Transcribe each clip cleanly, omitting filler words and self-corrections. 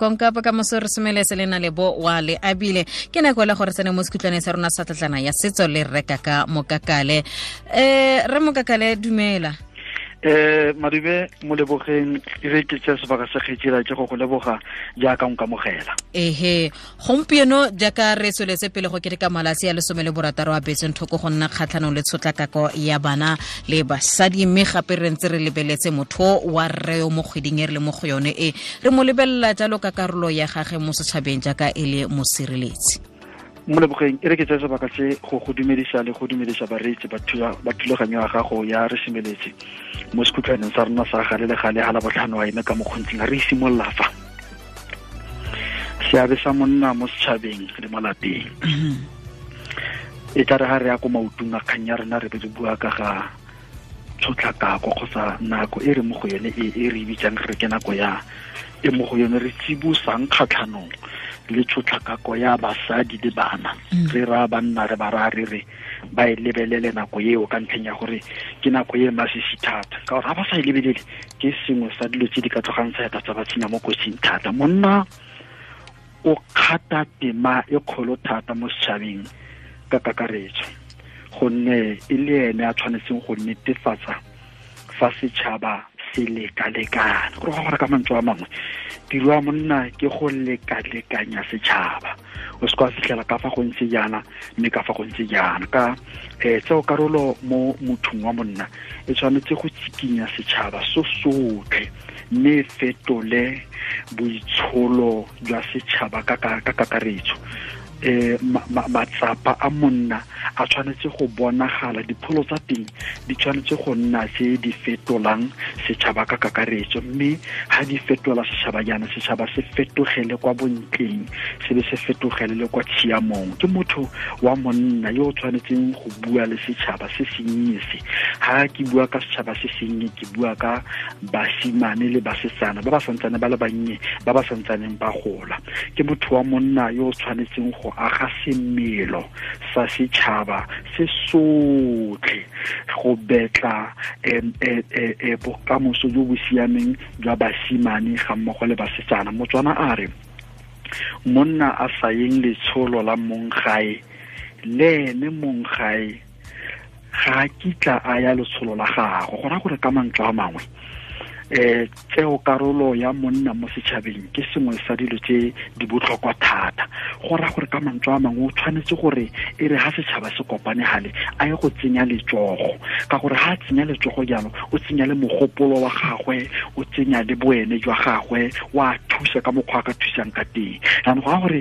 Konka bokamoso re semeletse le na le bo wa le abile. Ke nako le gore tsene mo sekhutlwaneng sa rona sa tlatlana ya setso le reka ka Mokakale. Re Mokakale, dumela. Madube, molebogeng, e re ke tse sebaka sa kgetsela ke go go leboga jaaka o nkamogela. Ehe, gompieno jaaka re tsweletse pele go keteka malatsi a 16 a betseng thoko go nna kgatlhanong le tshotlakako ya bana le basadi, mme gape re ntse re lebeletse motho wa rre yo mo kgweding e re le mo go yone e re mo lebelela jalo ka karolo ya gagwe mo setšhabeng jaaka e le mosireletsi. Molebogeng, e re ke tseye sebaka se go go dumedisa le go dumedisa bareetsi ba thulaganyo ya gago ya re semeletse mo sekhutlhwaneng sa rona sa gale le gale ga la botlhano wa eme ka mokgontsing re simolola fa seabe sa monna mo setšhabeng le mo lapeng. E tla re ga re ya ko maotong a kgang ya rena re be re bua ka ga tshotlakako kgotsa nako e re mo go yone e re bitsang re ke nako ya e mo go yone re tsibosang kgatlhanong le tshotlakako ya basadi le bana. Re raya banna re ba raya re re ba e lebelele nako eo ka ntlheng ya gore ke nako e masisi thata, ka gore ga ba sa e lebelele ke sengwe sa dilo tse di ka tlogang sa eta tsa ba tsenya mo kotsing thata. Monna o kgata tema e kgolo thata mo setšhabeng ka kakaretso, gonne e le ene a tshwanetseng go netefatsa fa setšhaba se lekalekana. Gore go gore ka mantswe a mangwe, tiro ya monna ke go lekalekanya setšhaba. O se ka fitlhela ka fa go ntse jaana mme ka fa go ntse jaana. Ka tseo karolo mo mothong wa monna e tshwanetse go tsikinya setšhaba so sotlhe mme fetole boitsholo jwa setšhaba ka kakaretso. Matsapa a monna a tshwanetse go bonagala, dipholo tsa teng di tshwanetse go nna tse di fetolang setšhaba ka kakaretso, mme ha di fetola setšhaba jaana, setšhaba se fetogele kwa bontleng, se be se fetogele le kwa tshiamong. Ke motho wa monna yo o tshwanetseng go bua le setšhaba se sennye se. Ha ke bua ka setšhaba se sennye, ke bua ka basimane le basetsana ba ba santsane ba le bannye, ba ba santsaneng ba gola. Ke motho wa monna yo o tshwanetseng go aga semelo sa setšhaba se sotlhe go betla bokamoso jo bo siameng jwa basimane ga mmogo le basetsana. Motswana a re monna a sa yeng letsholo la mong gae, le ene mong gae ga a kitla a ya letsholo la gagwe. Go raya gore ka mantswe a mangwe, tseo karolo ya monna mo setšhabeng ke sengwe sa dilo tse di botlhokwa thata. Go raya gore ka mantswe a mangwe o tshwanetse gore e re ha setšhaba se kopane gale a ye go tsenya letsogo, ka gore ha a tsenya letsogo jalo o tsenya le mogopolo wa gagwe, o tsenya le boene jwa gagwe, wa thusa ka mokgwa a ka thusang ka teng. Jaanong go raya gore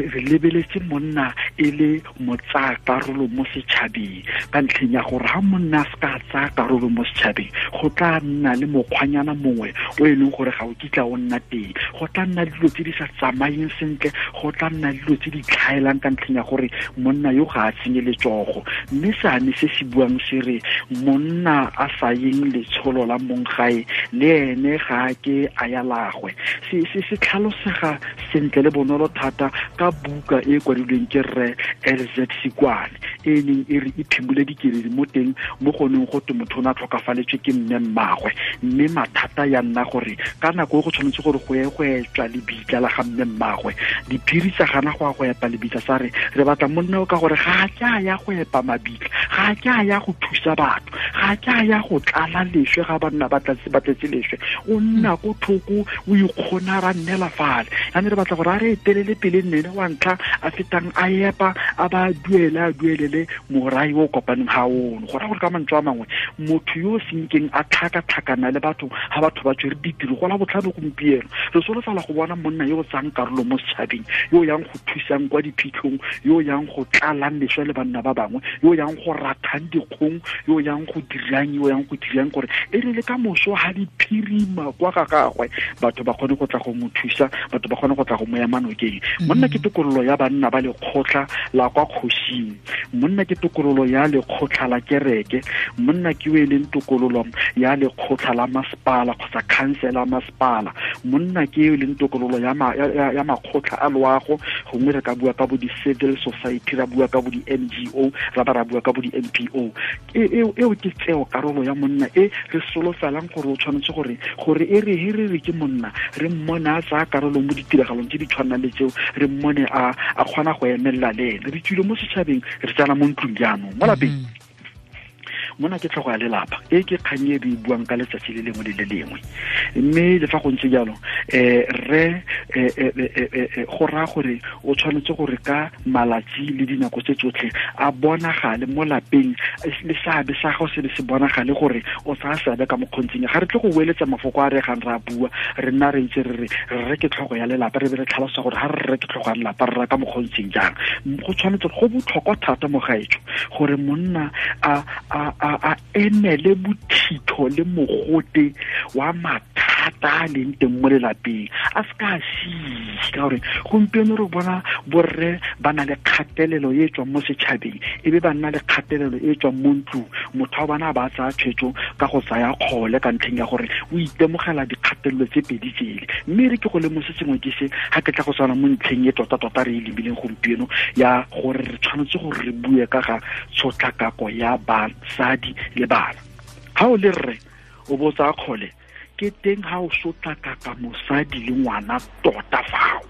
re lebeletse monna e le motsaya karolo mo setšhabeng, ka ntlheng ya gore ha monna a se ka tsaya karolo mo setšhabeng go tla nna le mokgwanyana mongwe o e leng gore ga o kitla o nna teng, go tla nna le dilo tse di sa tsamayeng sentle, go tla nna le dilo tse di tlhaelang ka ntlheng ya gore monna yo ga a tsenye letsogo. Mme seane se se buang se re monna a sa yeng letsholo la mong gae le ene ga a ke a ya lagwe, se tlhalosega sentle le bonolo thata ka buka e kwadilweng ke rre LZ Sikwane e neng e re e phimole dikeledi mo teng mo go neng go twe motho o ne a tlhokafaletswe ke mme mmagwe, mme mathata ya nna gore ka nako e go tshwanetse gore go ye go etswa lebitla la ga mme mmagwe, diphiri tsa gana go ya go epa lebitla, sa re re batla monna o ka gore ga a ke a ya go epa mabitla, ga a ke a ya go thusa batho, ga a ke a ya go tlala leswe ga banna ba tletse leswe, o nna ko thoko o ikgona ra nnela fale. Jaanong re batla gore a re etelele pele nnene wa ntlha a fetang a epa a ba duele a duelele morai o kopaneng ga ono. Go raya gore ka mantswe a mangwe motho yo o senkeng a tlhakatlhakana le batho ga batho ba tswere ditiro go la botlhano gompieno, re solofela go bona monna yo o tsayang karolo mo setšhabeng, yo o yang go thusang kwa diphitlhong, yo o yang go tlalang leswe le banna ba bangwe, yo o yang go rathang dikgong, yo o yang go dirang, yo o yang go dirang gore e re le ka moso ga di phirima kwa ga gagwe batho ba kgone go tla go mo thusa, batho ba kgone go tla go mo ema nokeng. Monna ke tokololo ya banna ba lekgotla la kwa kgosing, monna ke tokololo ya lekgotla la kereke, monna ke o e leng tokololo ya lekgotla la masepala kgotsa khansela ya masepala, monna ke o e leng tokololo ya makgotla a loago, gongwe re ka bua ka bo di-civil society, ra bua ka bo di-NGO, ra ba ra bua ka bo di-NPO. Eo ke tseo karolo ya monna e re solofelang gore o tshwanetse gore e re he re re ke monna, re mmone a tsaya karolo mo ditiragalong tse di tshwanang le tseo, re mmone a kgona go emelela le ene. Re tswile mo setšhabeng, re tsena mo ntlong jaanong mo lapeng. Mona ke tlhogo ya lelapa, e ke kgang e re buang ka letsatsi le lengwe le le lengwe. Mme le fa go ntse jalo, re go raya gore o tshwanetse gore ka malatsi le dinako tse tsotlhe a bonagale mo lapeng, le seabe sa gago se be se bonagale gore o tsaya seabe ka mokgontseng. Ga re tle go boeletsa mafoko a re gang re a bua, re nna re ntse re re ke tlhogo ya lelapa, re be re tlhalosa gore ga re re ke tlhogo ya lelapa re raya ka mokgontseng jang. Go tshwanetse go botlhokwa thata mo gaetsho gore monna a emele bothitho le mogote wa mathata a leng teng mo lelapeng, a se ka a sise. Ka gore gompieno re bona borre ba na le kgatelelo e tswang mo setšhabeng, e be ba nna le kgatelelo e tswang mo ntlong. Motho wa bana ba tsaya tshwetso ka go tsaya kgole ka ntlheng ya gore o itemogela dikgatelelo tse pedi tsele. Mme re ke go lemose sengwe ke se ga ke tla go tshwana mo ntlheng e tota-tota re e lebileng gompieno ya gore re tshwanetse gore re bue ka ga tshotlakako ya basadi le bana. Ha o le rre o bo tsaya kgole, ke teng ha o sotlakaka mosadi le ngwana tota fao,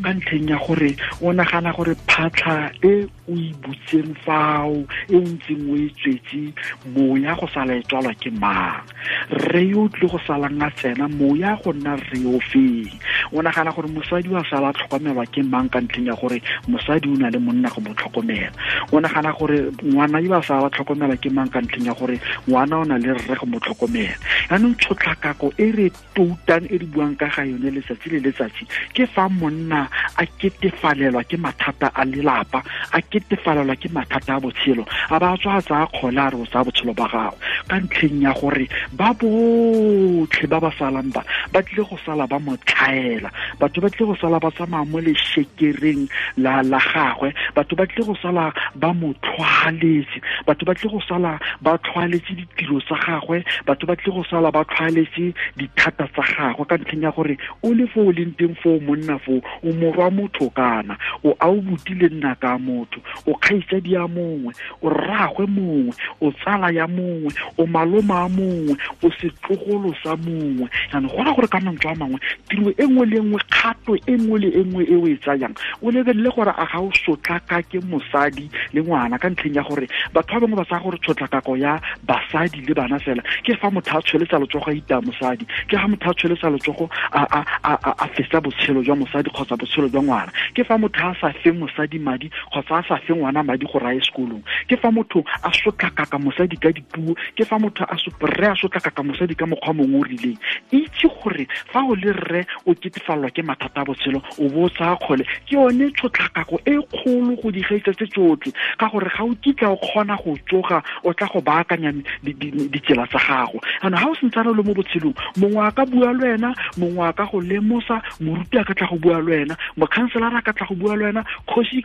ka ntlheng ya gore o nagana gore phatlha e o e butseng fao, e o ntseng o e tswetse, moya go sala e tswalwa ke mang? Rre yo o tlile go salang a tsena, moya go nna rre yo feng? O nagana gore mosadi wa sala a tlhokomelwa ke mang ka ntlheng ya gore mosadi o na le monna go mo tlhokomela? O nagana gore ngwana yo a sala a tlhokomelwa ke mang ka ntlheng ya gore ngwana o na le rre go mo tlhokomela? Yaanong tshotlakako e re toutang e re buang ka ga yone letsatsi le letsatsi ke fa monna a ketefalelwa ke mathata a lelapa, a ketefalelwa ke mathata a botshelo, a ba tswa a tsaya kgole a re o tsaya botshelo ba gago, ka ntlheng ya gore ba botlhe ba ba salang ba ba tlile go sala ba mo tlhaela, batho ba tlile go sala ba tsamaya mo leshekereng la gagwe, batho ba tlile go sala ba mo tlhwaletse, batho ba tlile go sala ba tlhwaletse ditiro tsa gagwe, batho ba tlile go sala ba tlhwaletse dithata tsa gagwe, ka ntlheng ya gore o le fo o leng teng foo monna foo, o morwa motho kana o a o botile nna ka motho, o kgaitsadi ya mongwe, o rraagwe mongwe, o tsala ya mongwe, o maloma a mongwe, o setlogolo sa mongwe. Jaanong go raya gore ka mantswe a mangwe, tiro e nngwe le nngwe, kgato e nngwe le e nngwe e o e tsayang, o lebelele gore a ga o sotlakake mosadi le ngwana, ka ntlheng ya gore batho ba bangwe ba tsaya gore tshotlakako ya basadi le bana fela ke fa motho a tsholetsa letsogo a itaya mosadi, ke ga motho a tsholetsa letsogo a fetsa botshelo jwa mosadi kgotsa botshelo jwa ngwana, ke fa motho a sa fe mosadi madi kgotsa a sa fe ngwana madi gore a ye sekolong, ke fa motho a sotlakaka mosadi ka dipuo, ke fa motho a rre a sotlakaka mosadi ka mokgwa mongwe o rileng. Itse gore fa o le rre o ketefalelwa ke mathata a botshelo, o bo o tsaya kgole, ke yone tshotlakako e kgolo go di gaisa tse tsotlhe, ka gore ga o kitla o kgona go tsoga o tla go baakanya ditsela tsa gago. Jaanong ga o sentsane le mo botshelong, mongwe a ka bua le wena, mongwe a ka go lemosa, moruti a ka tla go bua le wena, mokhanselara a ka tla go bua le wena, kgosi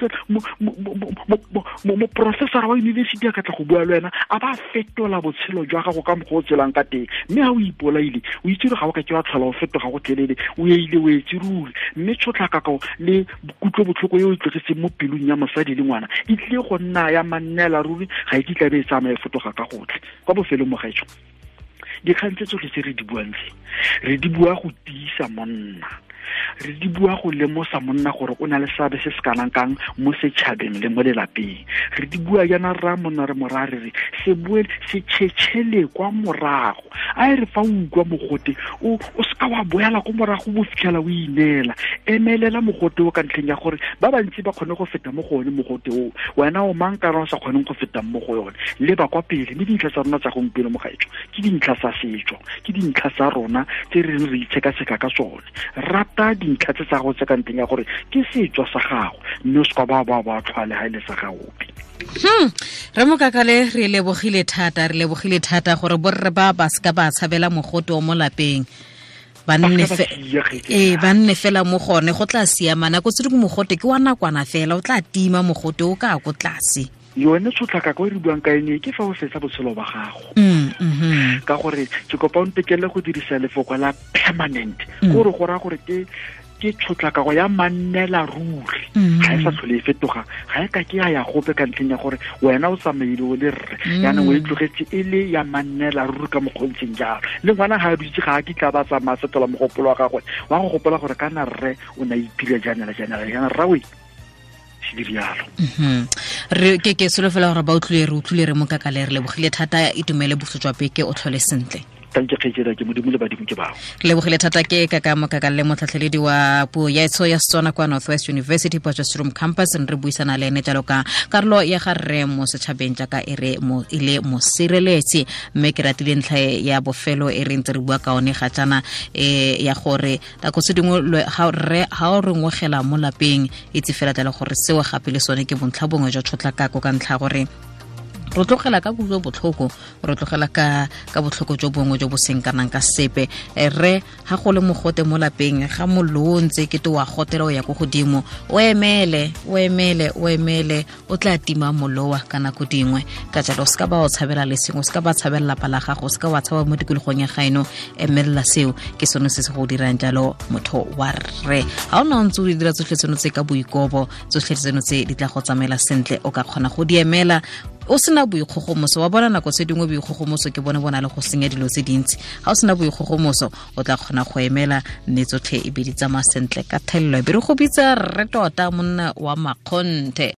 moprofessora wa yunibesithi a ka tla go bua le wena, a ba fetola botshelo jwa gago ka mokgwa o tselang ka teng. Mme ga o ipolaile, o itse gore ga o ka ke wa tlhola o fetoga go tlelele, o eile o etse ruri. Mme tshotlakako le kutlobotlhoko e o e tlogetseng mo pelong ya mosadi le ngwana e tlile go nna ya mannela ruri, ga e kitla be e tsamaya e fetoga ka gotlhe. Kwa bofelong mo gaetsho, dikgang tse tsotlhe tse re di buang tse, re di bua go tiisa monna, re di bua go lemosa monna gore o na le seabe se se kanang kang mo setšhabeng le mo lelapeng. Re di bua jaana rra monna re moraya re re se boele se tšhetšhele kwa morago, a e re fa o utlwa mogote o seka wa boela ko morago bo fitlhela o ineela, emelela mogote o ka ntlheng ya gore ba bantsi ba kgone go feta mo go one mogote o, wena o mang kana o sa kgoneng go feta mo go yone, leba kwa pele. Mme dintlha tsa rona tsa gompieno mo gaetsho ke dintlha tsa setso, ke dintlha tsa rona tse re reng re itshekatsheka ka tsone. Rata dintlha tse tsa go tse ka ntlheng ya gore ke setso sa gago, mme o se ka ba tlhwale ga e le sa gaope. Re Mokakale, re lebogile thata, re lebogile thata gore borre ba ba seka ba tshabela mogote o mo lapeng. Ba nne fela mo gone go tla siama nako tse dingwe mogote ke wa nakwana fela o tla tima mogote o ka ko tlase. Yone tshotlakako e re buang ka ene ke fa o fetsa botshelo ba gago. Ka gore ke kopa o ntekele go dirisa lefoko la permanent, gore go raya gore ke tshotlakako ya mannela ruri, ga e sa tlhole e fetoga, ga e ka ke ya gope ka ntlheng ya gore wena o tsamaile o le rre, yaanong o e tlogetse e le ya mannela ruri ka mokgontseng jalo. Le ngwana ga a dutse ga a kitla ba tsamaya fetola mogopolo wa gagwe wa go gopola gore kana rre o ne a ipile jaana jaana jaana rrawe. Re ke solofela gore ba utlwile re utlwile re Mokakale, re lebogile thata, itumele boso jwa beke, o tlhole sentle. Re lebogile thata ke Kaka Mokakale, motlhatlheledi wa puo ya etsho ya Setswana kwa Northwest University Potchefstroom Campus. Re buisana le ene jalo ka karolo ya ga rre mo setšhabeng jaaka e re e le mosireletsi. Mme ke ratile ntlha ya bofelo e re ntse re bua ka one ga jaana, ya gore nako tse dingwe ga rre ga o re ngwegela mo lapeng, itse fela jalo gore seo gape le sone ke bontlha bongwe jwa tshotlakako, ka ntlha gore re tlogela ka kutlo botlhoko, re tlogela ka botlhoko jo bongwe jo bo seng kanang ka sepe. Rre ga go le mogote mo lapeng, ga mollo o ntse kete wa gotela o ya ko godimo, o emele o emele o emele, o tla tima mollo wa ka nako dingwe. Ka jalo o seka ba o tshabela le sengwe, o seka ba tshabela lapa la gago, o seka wa tshaba mo tikologong ya gaeno, emelela seo ke sone se se go dirang jalo motho wa rre. Ga o na o ntse o dira tsotlhe tseno tse ka boikobo, tsotlhe tseno tse di tla go tsamaela sentle, o ka kgona go di emela o sena boikgogomoso. Wa bona nako tse dingwe boikgogomoso ke bone bona le go senya dilo tse dintsi. Ga o sena boikgogomoso o tla kgona go emela mme tsotlhe e be di tsamaya sentle ka thelelo. E be re go bitsa rre tota monna wa makgonthe.